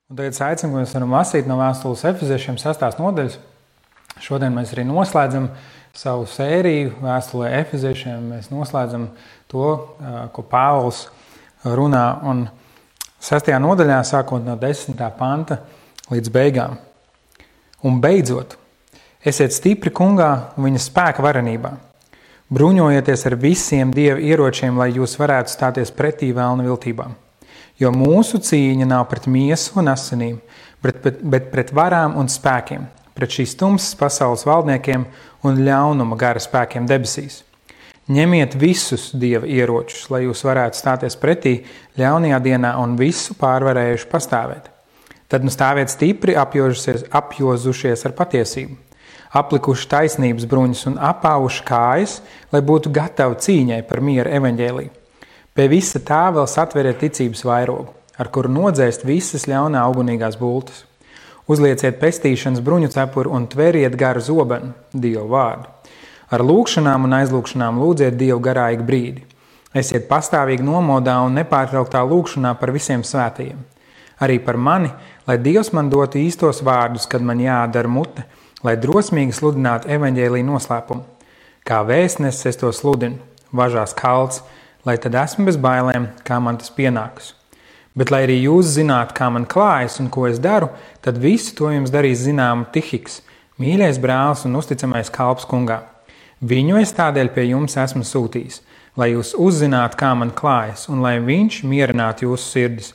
Un tagad es aicinu, ka mēs varam lasīt no vēstules Efeziešiem 6. nodaļas. Šodien mēs arī noslēdzam savu sēriju vēstulē Efeziešiem. Mēs noslēdzam to, ko Pāvils runā. Un 6. nodaļā, sākot no 10. panta līdz beigām. Un beidzot, esiet stipri kungā un viņa spēka varenībā. Bruņojieties ar visiem Dieva ieročiem, lai jūs varētu stāties pretī vēlna viltībām. Jo mūsu cīņa nav pret miesu un asinīm, bet pret varām un spēkiem, pret šīs tumsas pasaules valdniekiem un ļaunuma gara spēkiem debesīs. Ņemiet visus Dieva ieročus, lai jūs varētu stāties pretī ļaunajā dienā un visu pārvarējuši pastāvēt. Tad nu stāviet stipri apjozušies ar patiesību, aplikuši taisnības bruņas un apāvuši kājas, lai būtu gatavi cīņai par miera evaņģēliju. Pie visa tā vēl satveriet ticības vairogu, ar kuru nodzēst visas ļaunā ugunīgās bultas. Uzlieciet pestīšanas bruņu cepuri un tveriet garu zobenu, Dievu vārdu. Ar lūgšanām un aizlūgšanām lūdziet Dievu garā ik brīdi. Esiet pastāvīgi nomodā un nepārtrauktā lūgšanā par visiem svētajiem. Arī par mani, lai Dievs man dotu īstos vārdus, kad man jādara mute, lai drosmīgi sludinātu evaņģēliju noslēpumu. Kā vēstnesis es to sludinu, važās kalts, lai tad esmu bez bailēm, kā man tas pienākas. Bet, lai arī jūs zinātu, kā man klājas un ko es daru, tad visu to jums darīs zināmu Tihiks, mīļais brālis un uzticamais kalps kungā. Viņu es tādēļ pie jums esmu sūtījis, lai jūs uzzinātu, kā man klājas, un lai viņš mierinātu jūsu sirdis.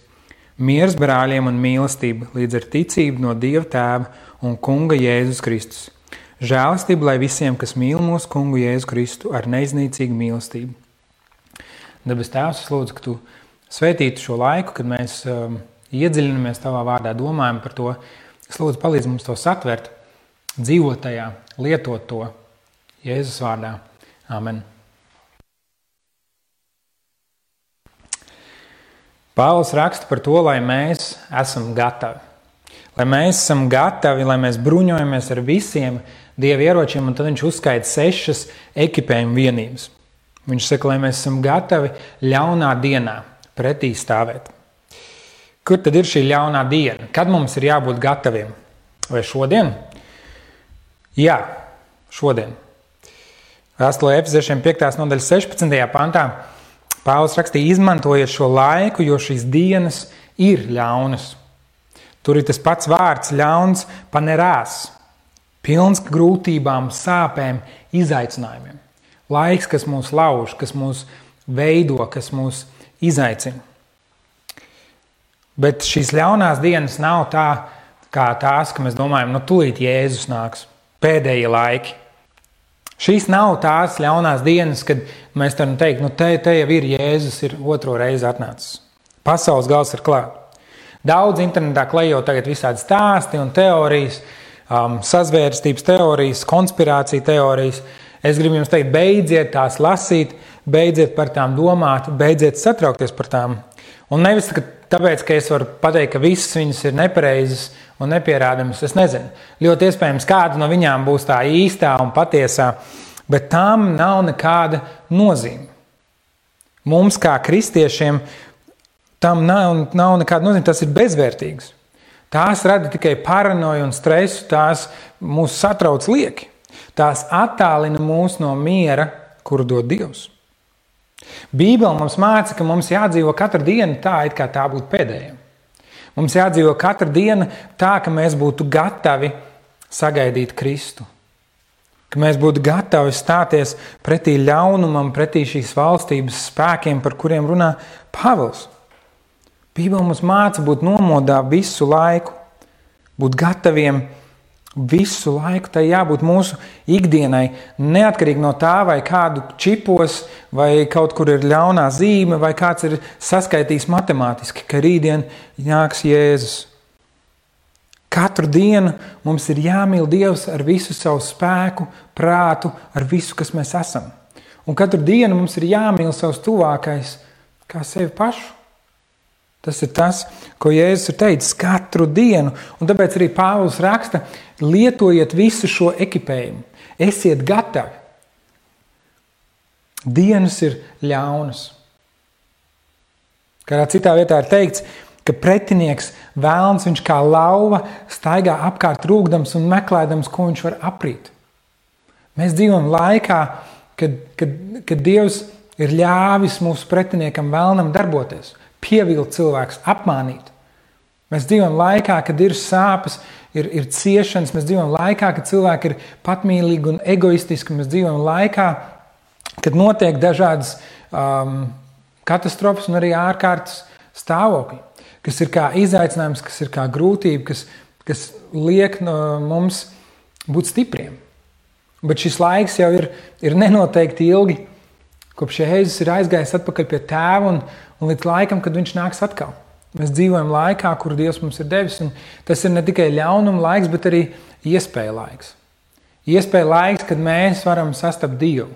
Miers brāļiem un mīlestība līdz ar ticību no Dieva Tēva un Kunga Jēzus Kristus. Žēlastība, lai visiem, kas mīl mūsu Kungu Jēzu Kristu ar neiznīcīgu mīlestību. Debes Tēvs, es lūdzu, ka Tu svētītu šo laiku, kad mēs iedziļinamies Tavā vārdā, domājam par to. Es lūdzu, palīdz mums to satvert, dzīvot tajā, lietot to Jēzus vārdā. Amen. Pāvils raksta par to, lai mēs esam gatavi. Lai mēs esam gatavi, lai mēs bruņojamies ar visiem Dieva ieročiem, un tad viņš uzskaita 6 ekipējuma vienības. Viņš saka, lai mēs esam gatavi ļaunā dienā pretī stāvēt. Kur tad ir šī ļaunā diena? Kad mums ir jābūt gataviem? Vai šodien? Jā, šodien. Vēstulē Efeziešiem 5. nodaļas 16. pantā Pāvils rakstīja, izmantojiet šo laiku, jo šīs dienas ir ļaunas. Tur ir tas pats vārds ļauns panerās, pilns grūtībām, sāpēm, izaicinājumiem. Laiks, kas mūs lauž, kas mūs veido, kas mūs izaicina. Bet šīs ļaunās dienas nav tā, kā tās, ka mēs domājam, tūlīt Jēzus nāks, pēdējie laiki. Šīs nav tās ļaunās dienas, kad mēs varam teikt, te jau ir Jēzus, ir otro reizi atnācis. Pasaules gals ir klāt. Daudz internetā klejo tagad visādi stāsti un teorijas, sazvērstības teorijas, konspirācija teorijas. Es gribu jums teikt, beidziet tās lasīt, beidziet par tām domāt, beidziet satraukties par tām. Un nevis tāpēc, ka es varu pateikt, ka visas viņas ir nepareizas un nepierādamas, es nezinu. Ļoti iespējams, kāda no viņām būs tā īstā un patiesā, bet tām nav nekāda nozīme. Mums kā kristiešiem tam nav nekāda nozīme, tas ir bezvērtīgs. Tās rada tikai paranoju un stresu, tās mūs satrauc lieki. Tās attālina mūs no miera, kuru dod Dievs. Bībele mums māca, ka mums jādzīvo katru dienu tā, it kā tā būtu pēdējā. Mums jādzīvo katru dienu tā, ka mēs būtu gatavi sagaidīt Kristu. Ka mēs būtu gatavi stāties pretī ļaunumam, pretī šīs valstības spēkiem, par kuriem runā Pāvils. Bībele mums māca būt nomodā visu laiku, būt gataviem visu laiku. Tai jābūt mūsu ikdienai, neatkarīgi no tā, vai kādu čipos, vai kaut kur ir ļaunā zīme, vai kāds ir saskaitījis matemātiski, ka rītdien nāks Jēzus. Katru dienu mums ir jāmīl Dievs ar visu savu spēku, prātu, ar visu, kas mēs esam. Un katru dienu mums ir jāmīl savs tuvākais kā sevi pašu. Tas ir tas, ko Jēzus ir teicis katru dienu. Un tāpēc arī Pāvils raksta, lietojiet visu šo ekipējumu. Esiet gatavi. Dienas ir ļaunas. Kādā citā vietā ir teikts, ka pretinieks vēlns, viņš kā lauva staigā apkārt rūgdams un meklēdams, ko viņš var aprīt. Mēs dzīvojam laikā, kad Dievs ir ļāvis mūsu pretiniekam vēlnam darboties, pievilt cilvēkus, apmānīt. Mēs dzīvojam laikā, kad ir sāpes, ir ciešanas, mēs dzīvojam laikā, kad cilvēki ir patmīlīgi un egoistiski, mēs dzīvojam laikā, kad notiek dažādas katastrofas un arī ārkārtas stāvokļi, kas ir kā izaicinājums, kas ir kā grūtība, kas liek mums būt stipriem. Bet šis laiks jau ir nenoteikti ilgi, kopš Jēzus ir aizgājis atpakaļ pie Tēva un līdz laikam, kad viņš nāks atkal. Mēs dzīvojam laikā, kur Dievs mums ir devis, un tas ir ne tikai ļaunuma laiks, bet arī iespēja laiks. Iespēja laiks, kad mēs varam sastapt Dievu,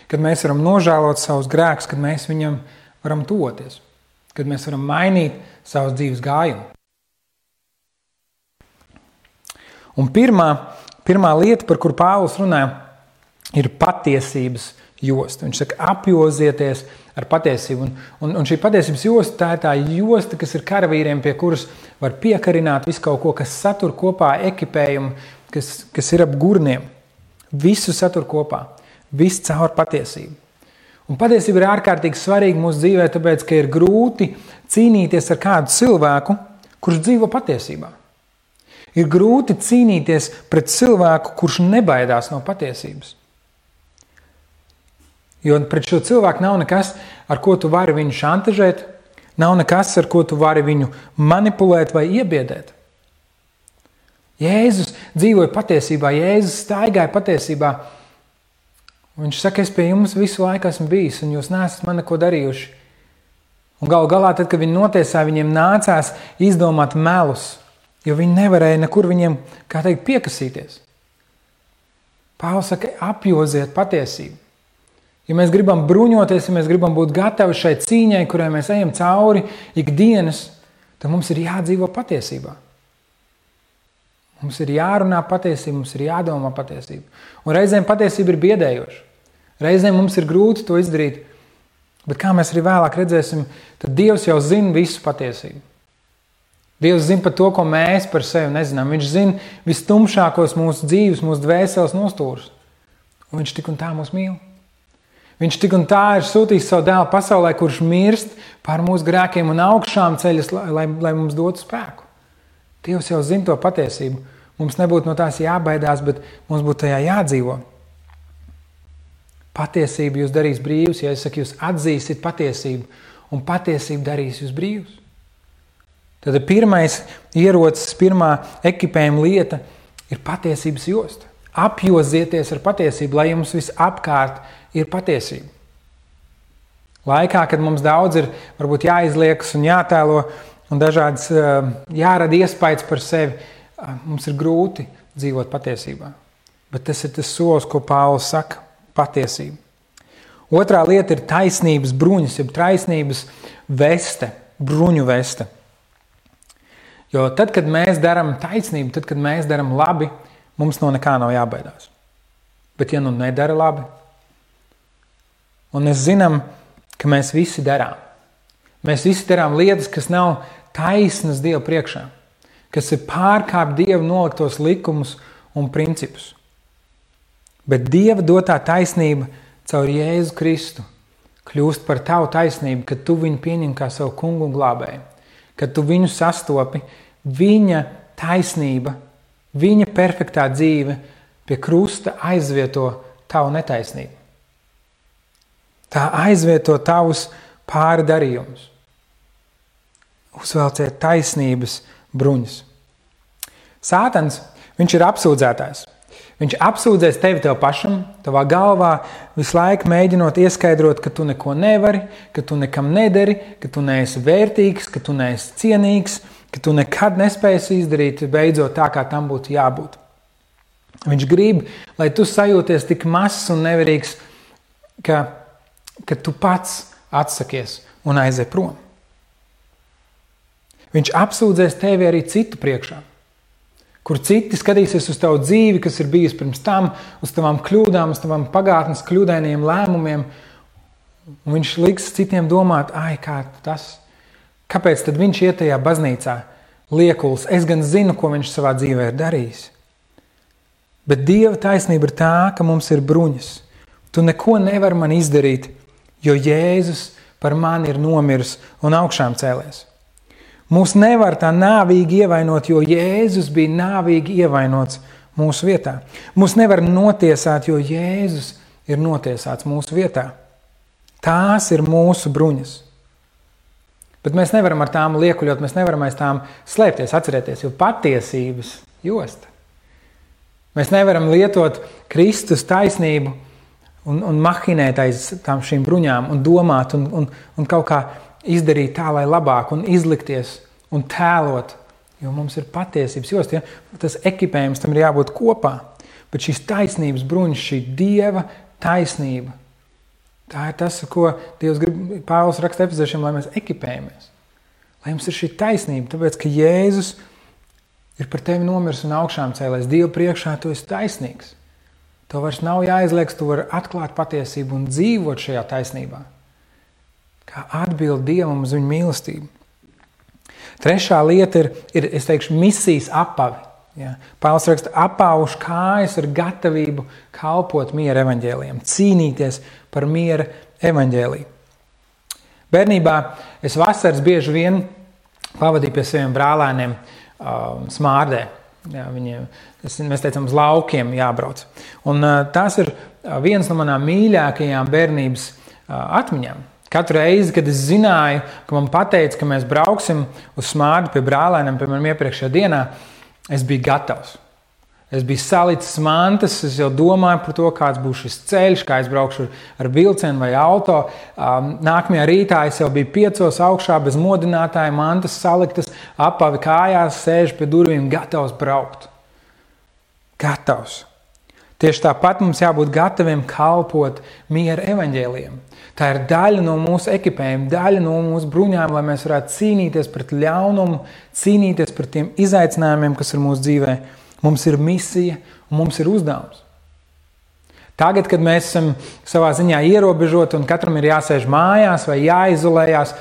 kad mēs varam nožēlot savus grēkus, kad mēs viņam varam tuvoties, kad mēs varam mainīt savus dzīves gājumu. Un pirmā lieta, par kuru Pāvils runā, ir patiesības josta. Viņš saka, apjozieties ar patiesību. Un šī patiesības josta, tā ir tā josta, kas ir karavīriem, pie kuras var piekarināt visu kaut ko, kas satur kopā ekipējumu, kas ir ap gurniem. Visu satur kopā. Viss caur patiesību. Un patiesība ir ārkārtīgi svarīga mūsu dzīvē, tāpēc, ka ir grūti cīnīties ar kādu cilvēku, kurš dzīvo patiesībā. Ir grūti cīnīties pret cilvēku, kurš nebaidās no patiesības. Jo pret šo cilvēku nav nekas, ar ko tu vari viņu šantažēt, nav nekas, ar ko tu vari viņu manipulēt vai iebiedēt. Jēzus dzīvoja patiesībā, Jēzus staigāja patiesībā. Viņš saka, es pie jums visu laiku esmu bijis, un jūs neesat man neko darījuši. Un galu galā, tad, kad viņi notiesāja, viņiem nācās izdomāt melus, jo viņi nevarēja nekur viņiem, kā teikt, piekasīties. Pāvils saka, apjoziet patiesību. Ja mēs gribam bruņoties, ja mēs gribam būt gatavi šai cīņai, kurai mēs ejam cauri ikdienas, tad mums ir jādzīvo patiesībā. Mums ir jārunā patiesība, mums ir jādomā patiesība. Un reizēm patiesība ir biedējoša. Reizēm mums ir grūti to izdarīt, bet kā mēs arī vēlāk redzēsim, tad Dievs jau zina visu patiesību. Dievs zina par to, ko mēs par sevi nezinām. Viņš zina vistumšākos mūsu dzīves, mūsu dvēseles nostūrus. Un viņš tik un tā mūs mīl. Viņš tik un tā ir sūtījis savu dēlu pasaulē, kurš mirst pār mūsu grēkiem un augšām ceļas, lai mums dotu spēku. Dievs jau zina to patiesību. Mums nebūtu no tās jābaidās, bet mums būtu tajā jādzīvo. Patiesība jūs darīs brīvus, ja es saku, jūs atzīsiet patiesību, un patiesība darīs jūs brīvus. Tad pirmais ierocis, pirmā ekipējuma lieta ir patiesības josta. Apjozieties ar patiesību, lai jums viss apkārt ir patiesība. Laikā, kad mums daudz ir varbūt jāizliekas un jātēlo un dažādas jārada iespējas par sevi, mums ir grūti dzīvot patiesībā. Bet tas ir tas solis, ko Pāvils saka – patiesība. Otrā lieta ir taisnības bruņas, jeb taisnības veste, bruņu veste. Jo tad, kad mēs darām taisnību, tad, kad mēs darām labi, mums no nekā nav jābaidās. Bet ja nu nedara labi, un mēs zinām, ka mēs visi darām. Mēs visi darām lietas, kas nav taisnas Dieva priekšā, kas ir pārkāpt Dieva noliktos likumus un principus. Bet Dieva dotā taisnība caur Jēzu Kristu kļūst par tavu taisnību, kad tu viņu pieņem kā savu kungu un glābēju, kad tu viņu sastopi, viņa taisnība, viņa perfektā dzīve pie krusta aizvieto tavu netaisnību. Tā aizvieto tavus pārdarījumus. Uzvelciet taisnības bruņas. Sātans, viņš ir apsūdzētājs. Viņš apsūdzēs tevi tev pašam, tavā galvā, visu laiku mēģinot ieskaidrot, ka tu neko nevari, ka tu nekam nedari, ka tu neesi vērtīgs, ka tu neesi cienīgs, ka tu nekad nespēsi izdarīt beidzot tā, kā tam būtu jābūt. Viņš grib, lai tu sajūties tik mazs un nevarīgs, ka tu pats atsakies un aizej prom. Viņš apsūdzēs tevi arī citu priekšā, kur citi skatīsies uz tavu dzīvi, kas ir bijusi pirms tam, uz tavām kļūdām, uz tavām pagātnes kļūdainiem lēmumiem, un viņš liks citiem domāt, kā tas, Kāpēc tad viņš iet tajā baznīcā? Liekuls, es gan zinu, ko viņš savā dzīvē ir darījis. Bet Dieva taisnība ir tā, ka mums ir bruņas. Tu neko nevari man izdarīt, jo Jēzus par mani ir nomiris un augšām cēlies. Mūs nevar tā nāvīgi ievainot, jo Jēzus bija nāvīgi ievainots mūsu vietā. Mūs nevar notiesāt, jo Jēzus ir notiesāts mūsu vietā. Tās ir mūsu bruņas. Bet mēs nevaram ar tām liekuļot, mēs nevaram aiz tām slēpties, atcerieties, jo patiesības josta. Mēs nevaram lietot Kristus taisnību un mahinēt aiz tām šīm bruņām un domāt un kaut kā izdarīt tā, lai labāk un izlikties un tēlot, jo mums ir patiesības josta. Ja? Tas ekipējums tam ir jābūt kopā, bet šīs taisnības bruņas, šī Dieva taisnība, tā ir tas, ko Dievs grib, Pāvils raksta Efeziešiem, lai mēs ekipējamies. Lai jums ir šī taisnība, tāpēc, ka Jēzus ir par tevi nomirs un augšām cēlēs. Dievu priekšā tu esi taisnīgs. Tev vairs nav jāizlieks, tu vari atklāt patiesību un dzīvot šajā taisnībā. Kā atbild Dievam uz viņu mīlestību. Trešā lieta ir es teikšu, misijas apavi. Ja. Pāvils raksta, apaušu kājas ar gatavību kalpot miera evaņģēlijam, cīnīties par miera evaņģēliju. Bērnībā es vasaras bieži vien pavadīju pie saviem brālēniem Smārdē. Ja, mēs teicam, uz laukiem jābrauc. Un tās ir viens no manām mīļākajām bērnības atmiņām. Katru reizi, kad es zināju, ka man pateica, ka mēs brauksim uz Smārdu pie brālēniem, piemēram, iepriekšējā dienā, es biju gatavs. Es biju salicis mantas, es jau domāju par to, kāds būs šis ceļš, kā es braukšu ar vilcienu vai auto. Nākamajā rītā es jau biju 5 augšā bez modinātāja, mantas saliktas, apavi kājās, sēžu pie durvīm, gatavs braukt. Gatavs. Tieši tāpat mums jābūt gataviem kalpot miera evaņģēlijam. Tā ir daļa no mūsu ekipējuma, daļa no mūsu bruņām, lai mēs varētu cīnīties pret ļaunumu, cīnīties pret tiem izaicinājumiem, kas ir mūsu dzīvē. Mums ir misija un mums ir uzdevums. Tagad, kad mēs esam savā ziņā ierobežoti un katram ir jāsēž mājās vai jāizolējās,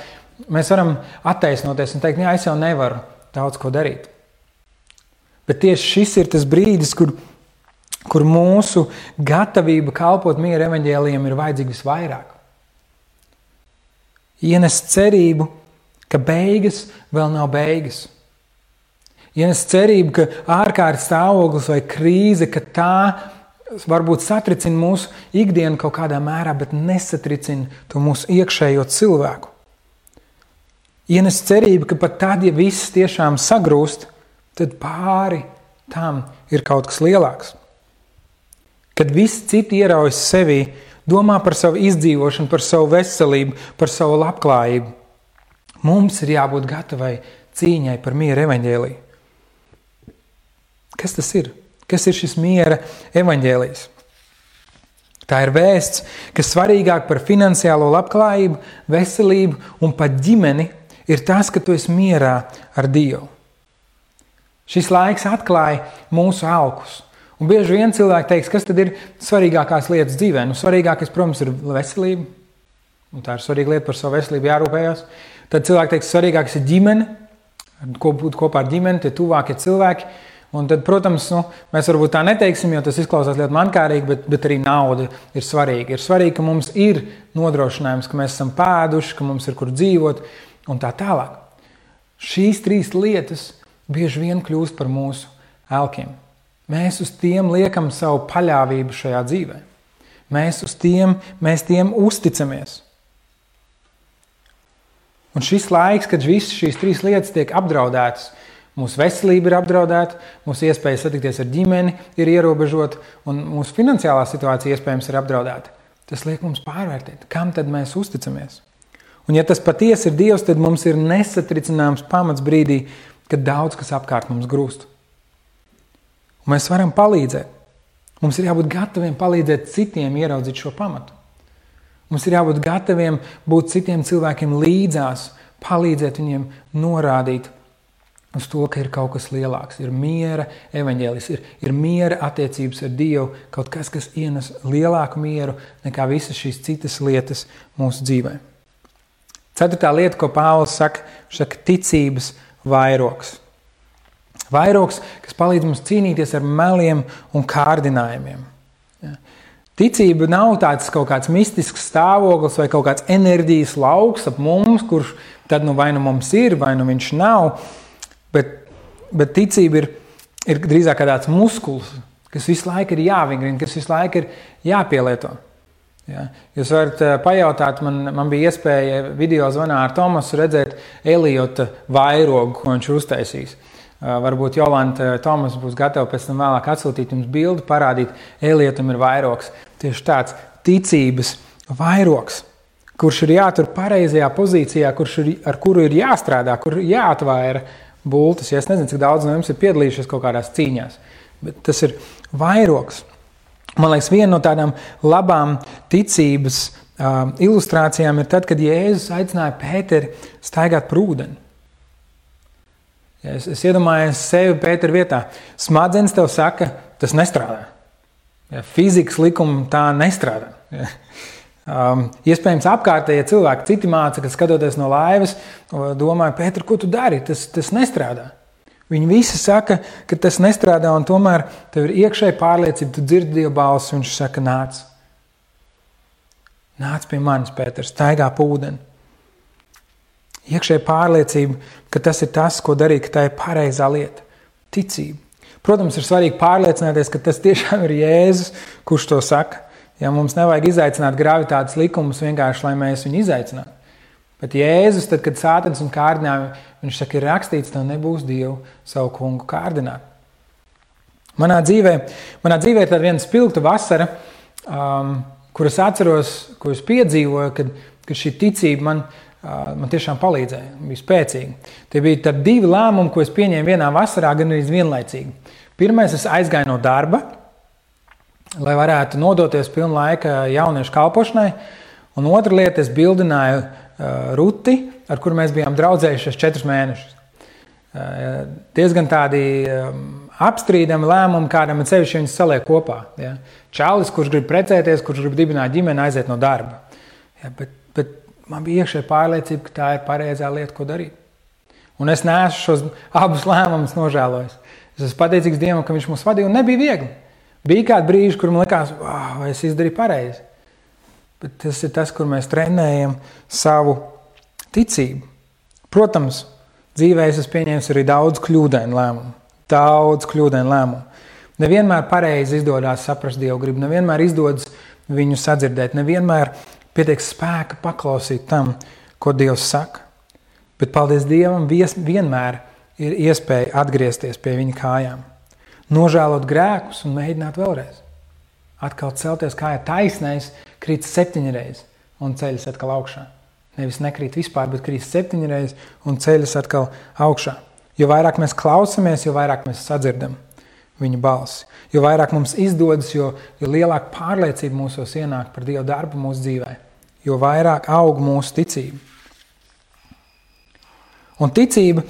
mēs varam attaisnoties un teikt, jā, es jau nevaru daudz ko darīt. Bet tieši šis ir tas brīdis, kur mūsu gatavība kalpot miera evaņģēlijam ir vajadzīga visvairāk. Ienest cerību, ka beigas vēl nav beigas. Ienest cerību, ka ārkārtas stāvoklis vai krīze, ka tā varbūt satricina mūsu ikdienu kaut kādā mērā, bet nesatricina to mūsu iekšējo cilvēku. Ienest cerību, ka pat tad, ja viss tiešām sagrūst, tad pāri tam ir kaut kas lielāks. Kad visi citi ieraujas sevī, domā par savu izdzīvošanu, par savu veselību, par savu labklājību, mums ir jābūt gatavai cīņai par miera evaņģēliju. Kas tas ir? Kas ir šis miera evaņģēlijs? Tā ir vēsts, kas svarīgāk par finansiālo labklājību, veselību un pat ģimeni ir tas, ka tu esi mierā ar Dievu. Šis laiks atklāja mūsu alkus. Un bieži vien cilvēki teiks, kas tad ir svarīgākās lietas dzīvē? Svarīgākais, protams, ir veselība. Un tā ir svarīga lieta, par savu veselību jārūpējās. Tad cilvēki teiks, svarīgākais ir ģimene, būt kopā ar ģimeni, tie tuvākie cilvēki. Un tad, protams, mēs varbūt tā neteiksim, jo tas izklausās ļoti mankārīgi, bet arī nauda ir svarīga. Ir svarīgi, ka mums ir nodrošinājums, ka mēs esam pēduši, ka mums ir kur dzīvot un tā tālāk. Šīs 3 lietas bieži vien kļūst par mūsu elkiem. Mēs uz tiem liekam savu paļāvību šajā dzīvē. Mēs tiem uzticamies. Un šis laiks, kad visas šīs 3 lietas tiek apdraudētas, mūsu veselība ir apdraudēta, mūsu iespēja satikties ar ģimeni ir ierobežota un mūsu finansiālā situācija iespējams ir apdraudēta. Tas liek mums pārvērtēt, kam tad mēs uzticamies. Un ja tas patiesi ir Dievs, tad mums ir nesatricināms pamats brīdī, kad daudz kas apkārt mums grūst. Un mēs varam palīdzēt. Mums ir jābūt gataviem palīdzēt citiem ieraudzīt šo pamatu. Mums ir jābūt gataviem būt citiem cilvēkiem līdzās, palīdzēt viņiem norādīt uz to, ka ir kaut kas lielāks. Ir miera evaņģēlijs, ir miera attiecības ar Dievu, kaut kas ienes lielāku mieru nekā visas šīs citas lietas mūsu dzīvē. Ceturtā lieta, ko Pāvils saka, ticības vairogs. Vairogs, kas palīdz mums cīnīties ar meliem un kārdinājumiem. Ja. Ticība nav tāds kaut kāds mistisks stāvoklis vai kaut kāds enerģijas lauks ap mums, kurš tad vai nu mums ir, vai nu viņš nav, bet ticība ir drīzāk kā tāds muskulis, kas visu laiku ir jāvingrina, kas visu laiku ir jāpielieto. Ja. Jūs varat pajautāt, man bija iespēja video zvanā ar Tomasu redzēt Eliota vairogu, ko viņš ir uztaisījis. Varbūt Jolanta Tomas būs gatava pēc tam vēlāk atsūtīt jums bildi, parādīt, Eliotam ir vairogs. Tieši tāds ticības vairogs, kurš ir jātur pareizajā pozīcijā, ar kuru ir jāstrādā, kur jāatvaira bultas. Ja es nezinu, cik daudz no jums ir piedalījušies kaut kādās cīņās, bet tas ir vairogs. Man liekas, viena no tādām labām ticības ilustrācijām ir tad, kad Jēzus aicināja Pēteri staigāt par ūdeni. Ja es iedomājos sevi Pētera vietā. Smadzenes tev saka, tas nestrādā. Ja, fizikas likumi tā nestrādā. Ja. Iespējams apkārtējie cilvēki, citi māca, kad skatoties no laivas, domāja, Pēter, ko tu dari? Tas nestrādā. Viņi visi saka, ka tas nestrādā, un tomēr tev ir iekšēja pārliecība, tu dzirdi Dieva balsi, un viņš saka, nāc. Nāc pie manis, Pēter, staigā pa ūdeni. Iekšēja pārliecība, ka tas ir tas, ko darīt, ka tā ir pareizā lieta. Ticība. Protams, ir svarīgi pārliecināties, ka tas tiešām ir Jēzus, kurš to saka. Ja mums nevajag izaicināt gravitātes likumus vienkārši, lai mēs viņu izaicinātu. Bet Jēzus, tad, kad sātans un kārdinājumi, viņš saka, ir rakstīts, tev nebūs Dievu savu kungu kārdināt. Manā dzīvē ir tāda viena spilgta vasara, kur es atceros, ko es piedzīvoju, kad šī ticība man tiešām palīdzēja, bija spēcīga. Tie bija tad 2 lēmumi, ko es pieņēmu vienā vasarā, gan arī vienlaicīgi. Pirmais, es aizgāju no darba, lai varētu nodoties pilnu laika jauniešu kalpošanai, un otra lieta, es bildināju Ruti, ar kuru mēs bijām draudzējušies 4 mēnešus. Diezgan tādi apstrīdami lēmumi, kādam ir sevišķi viņus saliek kopā. Ja. Čalis, kurš grib precēties, kurš grib dibināt ģimeni, aiziet no darba. Ja, bet man bija iekšēja pārliecība, ka tā ir pareizā lieta, ko darīt. Un es neesmu šos abus lēmumus nožēlojis. Es esmu pateicīgs Dievam, ka viņš mūs vadīja, un nebija viegli. Bija kādi brīži, kur man likās, vai es izdarīju pareizi. Bet tas ir tas, kur mēs trenējam savu ticību. Protams, dzīvē es pieņēmu arī daudz kļūdainu lēmumu. Nevienmēr pareizi izdodas saprast Dievu gribu, nevienmēr izdodas viņu sadzirdēt, nevienmēr pietiek spēka paklausīt tam, ko Dievs saka. Bet paldies Dievam, vienmēr ir iespēja atgriezties pie viņa kājām. Nožēlot grēkus un mēģināt vēlreiz. Atkal celties kājā taisnais, krīt 7 reizes un ceļas atkal augšā. Nevis nekrīt vispār, bet krīt 7 reizes un ceļas atkal augšā. Jo vairāk mēs klausamies, jo vairāk mēs sadzirdam viņa balsi. Jo vairāk mums izdodas, jo lielāka pārliecība mūsos ienāk par Dieva darbu mūsu dzīvē. Jo vairāk aug mūsu ticība. Un ticība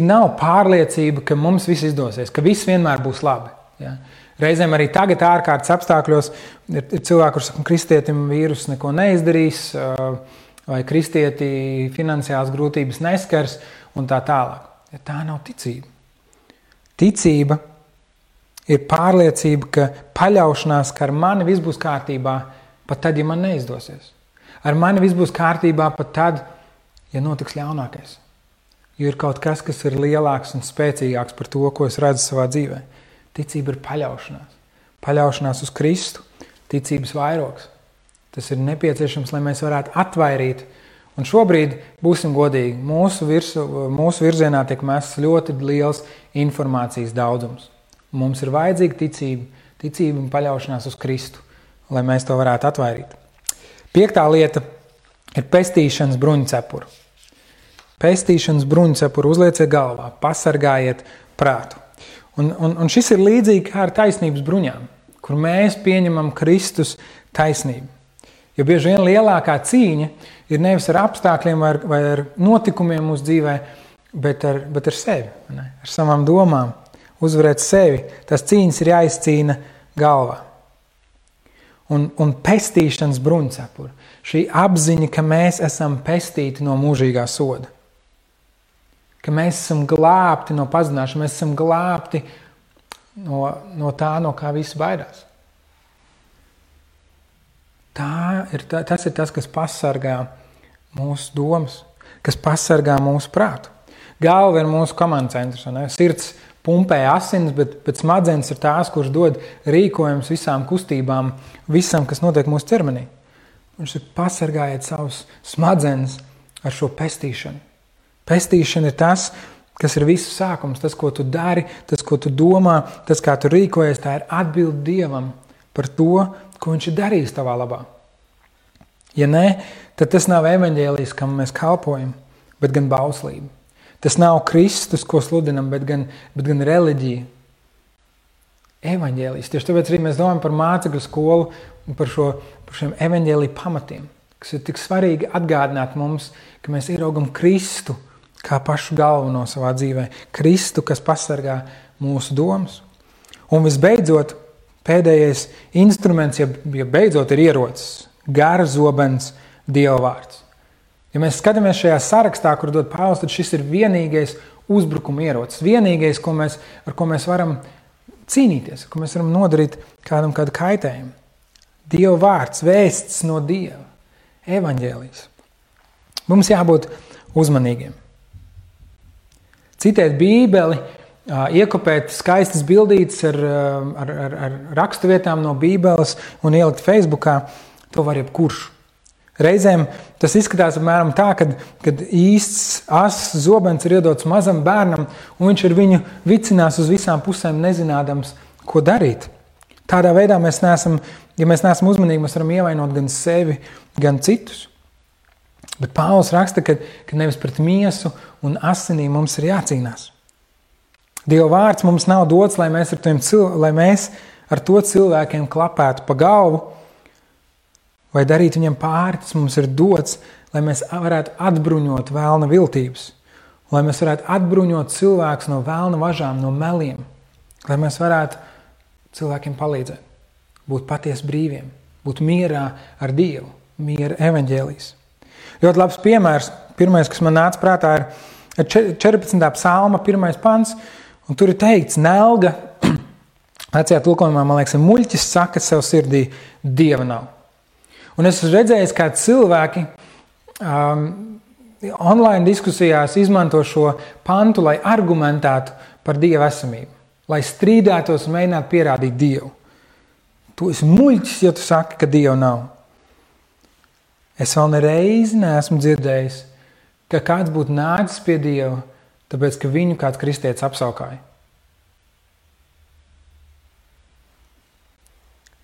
nav pārliecība, ka mums viss izdosies, ka viss vienmēr būs labi. Ja? Reizēm arī tagad ārkārtas apstākļos ir cilvēki, kurš saka, kristietim vīrus neko neizdarīs, vai kristieti finansiāls grūtības neskars un tā tālāk. Ja tā nav ticība. Ticība ir pārliecība, ka paļaušanās, ka ar mani viss būs kārtībā, pat tad, ja man neizdosies. Ar mani viss būs kārtībā pat tad, ja notiks ļaunākais. Jo ir kaut kas, kas ir lielāks un spēcīgāks par to, ko es redzu savā dzīvē. Ticība ir paļaušanās. Paļaušanās uz Kristu, ticības vairogs. Tas ir nepieciešams, lai mēs varētu atvairīt. Un šobrīd, būsim godīgi, mūsu virzienā tiek mests ļoti liels informācijas daudzums. Mums ir vajadzīga ticība un paļaušanās uz Kristu, lai mēs to varētu atvairīt. 5. lieta ir pestīšanas bruņcepura. Pestīšanas bruņcepuru uzlieciet galvā, pasargājiet prātu. Un šis ir līdzīgi kā ar taisnības bruņām, kur mēs pieņemam Kristus taisnību. Jo bieži vien lielākā cīņa ir nevis ar apstākļiem vai ar notikumiem mūsu dzīvē, bet ar sevi, ne? Ar savām domām, uzvarēt sevi. Tās cīņas ir jāizcīna galvā. un pestīšanas bruņcepuri. Šī apziņa, ka mēs esam pestīti no mūžīgā soda. Ka mēs esam glābti no pazināšanas, mēs esam glābti no tā, no kā visi baidās. Tas ir tas, kas pasargā mūsu domas, kas pasargā mūsu prātu. Galva ir mūsu komandas centrs. Sirds pumpē asinis, bet smadzenes ir tās, kuras dod rīkojumus visām kustībām, visam, kas notiek mūsu ķermenī. Viņš ir pasargājiet savus smadzenes ar šo pestīšanu. Pestīšana ir tas, kas ir visu sākums, tas, ko tu dari, tas, ko tu domā, tas, kā tu rīkojies, tā ir atbilde Dievam par to, ko viņš ir darījis tavā labā. Ja nē, tad tas nav evaņģēlijs, kam mēs kalpojam, bet gan bauslība. Tas nav Kristus, ko sludinam, bet gan reliģija. Evaņģēlijs. Tieši tāpēc arī mēs domājam par mācekļu skolu un par šiem evaņģēlija pamatiem, kas ir tik svarīgi atgādināt mums, ka mēs ieraugam Kristu kā pašu galveno savā dzīvē. Kristu, kas pasargā mūsu domas. Un visbeidzot, pēdējais instruments, ja beidzot ir ierocis, garzobens Dieva vārds. Ja mēs skatāmies šajā sarakstā, kur dod Pāvils, tad šis ir vienīgais uzbrukuma ierocis, vienīgais, ar ko mēs varam cīnīties, ar ko mēs varam nodarīt kādu kaitējumu. Dieva vārds, vēsts no Dieva, evaņģēlijs. Mums jābūt uzmanīgiem. Citēt Bībeli, iekopēt skaistas bildītes ar rakstu vietām no Bībeles un ielikt Facebookā, to var jebkurš. Reizēm tas izskatās apmēram tā, kad īsts asas zobens ir iedots mazam bērnam, un viņš ar viņu vicinās uz visām pusēm nezinādams, ko darīt. Tādā veidā ja mēs neesam uzmanīgi, mēs varam ievainot gan sevi, gan citus. Bet Pāvils raksta, ka nevis pret miesu un asinīm mums ir jācīnās. Dieva vārds mums nav dots, lai mēs ar to cilvēkiem klapētu pa galvu, vai darīt viņam pāri. Tas mums ir dots, lai mēs varētu atbruņot vēlna viltības, lai mēs varētu atbruņot cilvēkus no vēlna važām, no meliem, lai mēs varētu cilvēkiem palīdzēt, būt patiesi brīviem, būt mierā ar Dievu, miera evaņģēlijs. Ļoti labs piemērs, pirmais, kas man nāca prātā, ir 14. psalma 1. pants, un tur ir teikts, nelga, vecajā tulkojumā, man liekas, muļķis saka sev sirdī, Dieva nav. Un es esmu redzējis, kā cilvēki online diskusijās izmanto šo pantu, lai argumentētu par Dieva esamību, lai strīdētos un mēģinātu pierādīt Dievu. Tu esi muļķis, ja tu saki, ka Dieva nav. Es vēl nereizi neesmu dzirdējis, ka kāds būtu nācis pie Dieva, tāpēc, ka viņu kāds kristietis apsaukāja.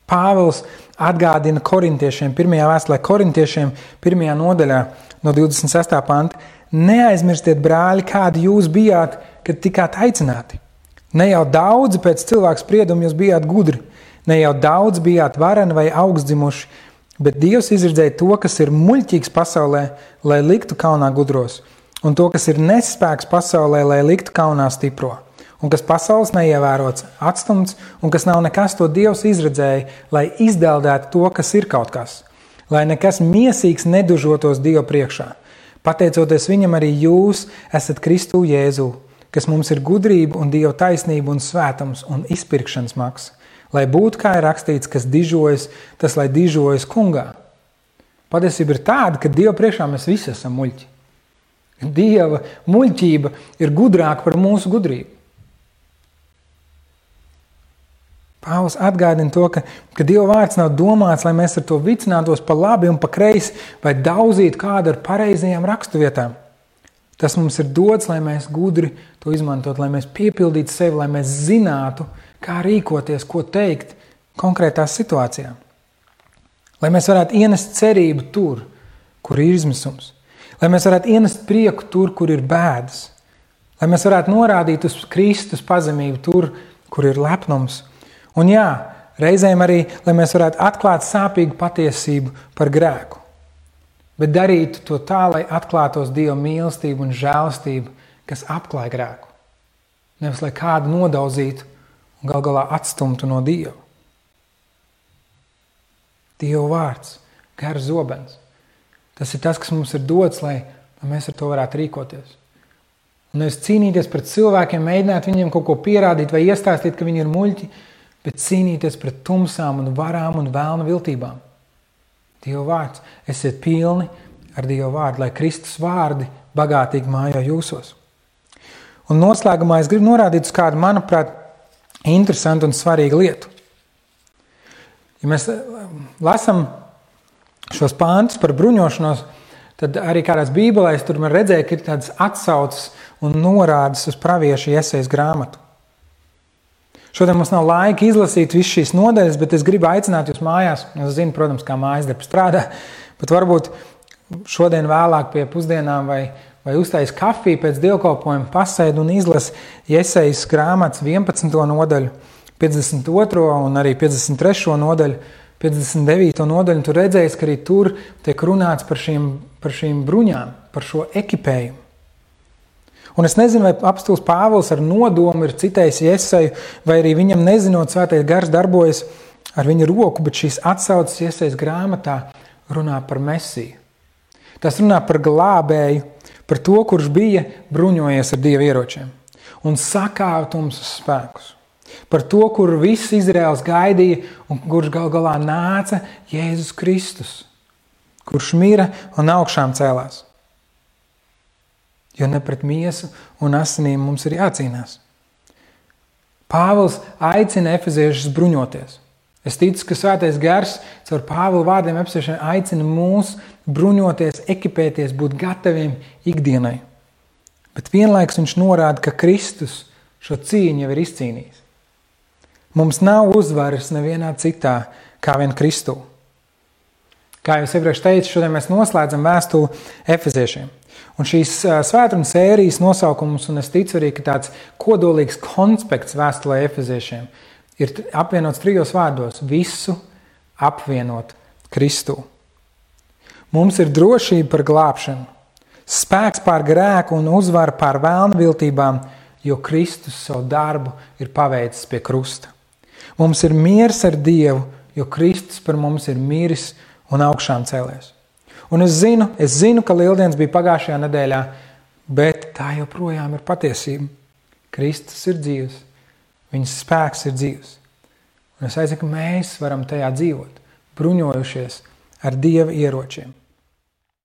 Pāvils atgādina korintiešiem, pirmajā vēstulē korintiešiem, 1. nodaļā no 26. panta. Neaizmirstiet, brāļi, kādi jūs bijāt, kad tikāt aicināti. Ne jau daudzi pēc cilvēku sprieduma jūs bijāt gudri, ne jau daudz bijāt vareni vai augstdzimuši, bet Dievs izredzēja to, kas ir muļķīgs pasaulē, lai liktu kaunā gudros, un to, kas ir nespēks pasaulē, lai liktu kaunā stipro. Un kas pasaules neievērots, atstumts, un kas nav nekas, to Dievs izredzēja, lai izdeldētu to, kas ir kaut kas, lai nekas miesīgs nedužotos Dievu priekšā. Pateicoties viņam, arī jūs esat Kristu Jēzu, kas mums ir gudrība un Dieva taisnība un svētums un izpirkšanas maksa, lai būtu, kā ir rakstīts, kas dižojas, tas lai dižojas kungā. Patiesība ir tāda, ka Dieva priekšā mēs visi esam muļķi. Dieva muļķība ir gudrāka par mūsu gudrību. Pāvils atgādina to, ka Dieva vārds nav domāts, lai mēs ar to vicinātos pa labi un pa kreisi vai daudzītu kādu ar pareizajām raksturvietām. Tas mums ir dots, lai mēs gudri to izmantot, lai mēs piepildītu sevi, lai mēs zinātu, kā rīkoties, ko teikt konkrētās situācijā. Lai mēs varētu ienest cerību tur, kur ir izmisums. Lai mēs varētu ienest prieku tur, kur ir bēdas. Lai mēs varētu norādīt uz Kristus pazemību tur, kur ir lepnums. Un jā, reizēm arī, lai mēs varētu atklāt sāpīgu patiesību par grēku, bet darītu to tā, lai atklātos Dieva mīlestību un žēlastību, kas apklāj grēku. Nevis, lai kādu nodauzītu un gal galā atstumtu no Dieva. Dieva vārds, gars zobens. Tas ir tas, kas mums ir dots, lai mēs ar to varētu rīkoties. Un nevis cīnīties pret cilvēkiem, mēģināt viņiem kaut ko pierādīt vai iestāstīt, ka viņi ir muļķi, bet cīnīties pret tumsām un varām un vēlna viltībām. Dieva vārds, esiet pilni ar Dieva vārdu, lai Kristus vārdi bagātīgi mājo jūsos. Un noslēgumā es gribu norādīt uz kādu, manuprāt, interesantu un svarīgu lietu. Ja mēs lasam šos pāntus par bruņošanos, tad arī kādās bībelēs tur man redzēja, ka ir tādas atsauces un norādes uz praviešu Jesajas grāmatu. Šodien mums nav laika izlasīt visu šīs nodaļas, bet es gribu aicināt jūs mājās. Es zinu, protams, kā mājas darbi strādā, bet varbūt šodien vēlāk pie pusdienām vai uztais kafiju pēc dievkalpojuma pasēd un izlas Jesajas grāmatas 11. nodaļu, 52. un arī 53. nodaļu, 59. nodaļu. Tur redzēs, ka arī tur tiek runāts par šīm bruņām, par šo ekipējumu. Un es nezinu, vai apostūls Pāvils ar nodomu ir citējis Jesaju, vai arī viņam nezinot svētais gars darbojas ar viņa roku, bet šīs atsauces Jesajas grāmatā runā par Mesiju. Tas runā par glābēju, par to, kurš bija bruņojies ar Dieva ieročiem un sakāva tumsas spēkus. Par to, kur viss Izraels gaidīja un kurš gal galā nāca Jēzus Kristus, kurš mira un augšām cēlās. Jo ne pret miesu un asinīm mums ir jācīnās. Pāvils aicina efeziešus bruņoties. Es ticu, ka svētais gars caur Pāvila vārdiem efeziešiem aicina mūs bruņoties, ekipēties, būt gataviem ikdienai. Bet vienlaikus viņš norāda, ka Kristus šo cīņu jau ir izcīnījis. Mums nav uzvaras nevienā citā kā vien Kristū. Kā jau es iepriekš teicu, šodien mēs noslēdzam vēstuli efeziešiem. Un šīs svētrunas sērijas nosaukums, un es ticu arī, ka tāds kodolīgs konspekts vēstulē efeziešiem ir apvienots 3 vārdos – visu apvienot Kristū. Mums ir drošība par glābšanu, spēks pār grēku un uzvara pār vēlna viltībām, jo Kristus savu darbu ir paveicis pie krusta. Mums ir miers ar Dievu, jo Kristus par mums ir miris un augšām cēlies. Un es zinu, ka Lieldienas bija pagājušajā nedēļā, bet tā joprojām ir patiesība. Kristus ir dzīvs, viņas spēks ir dzīvs. Un es aicinu, ka mēs varam tajā dzīvot, bruņojušies ar Dieva ieročiem.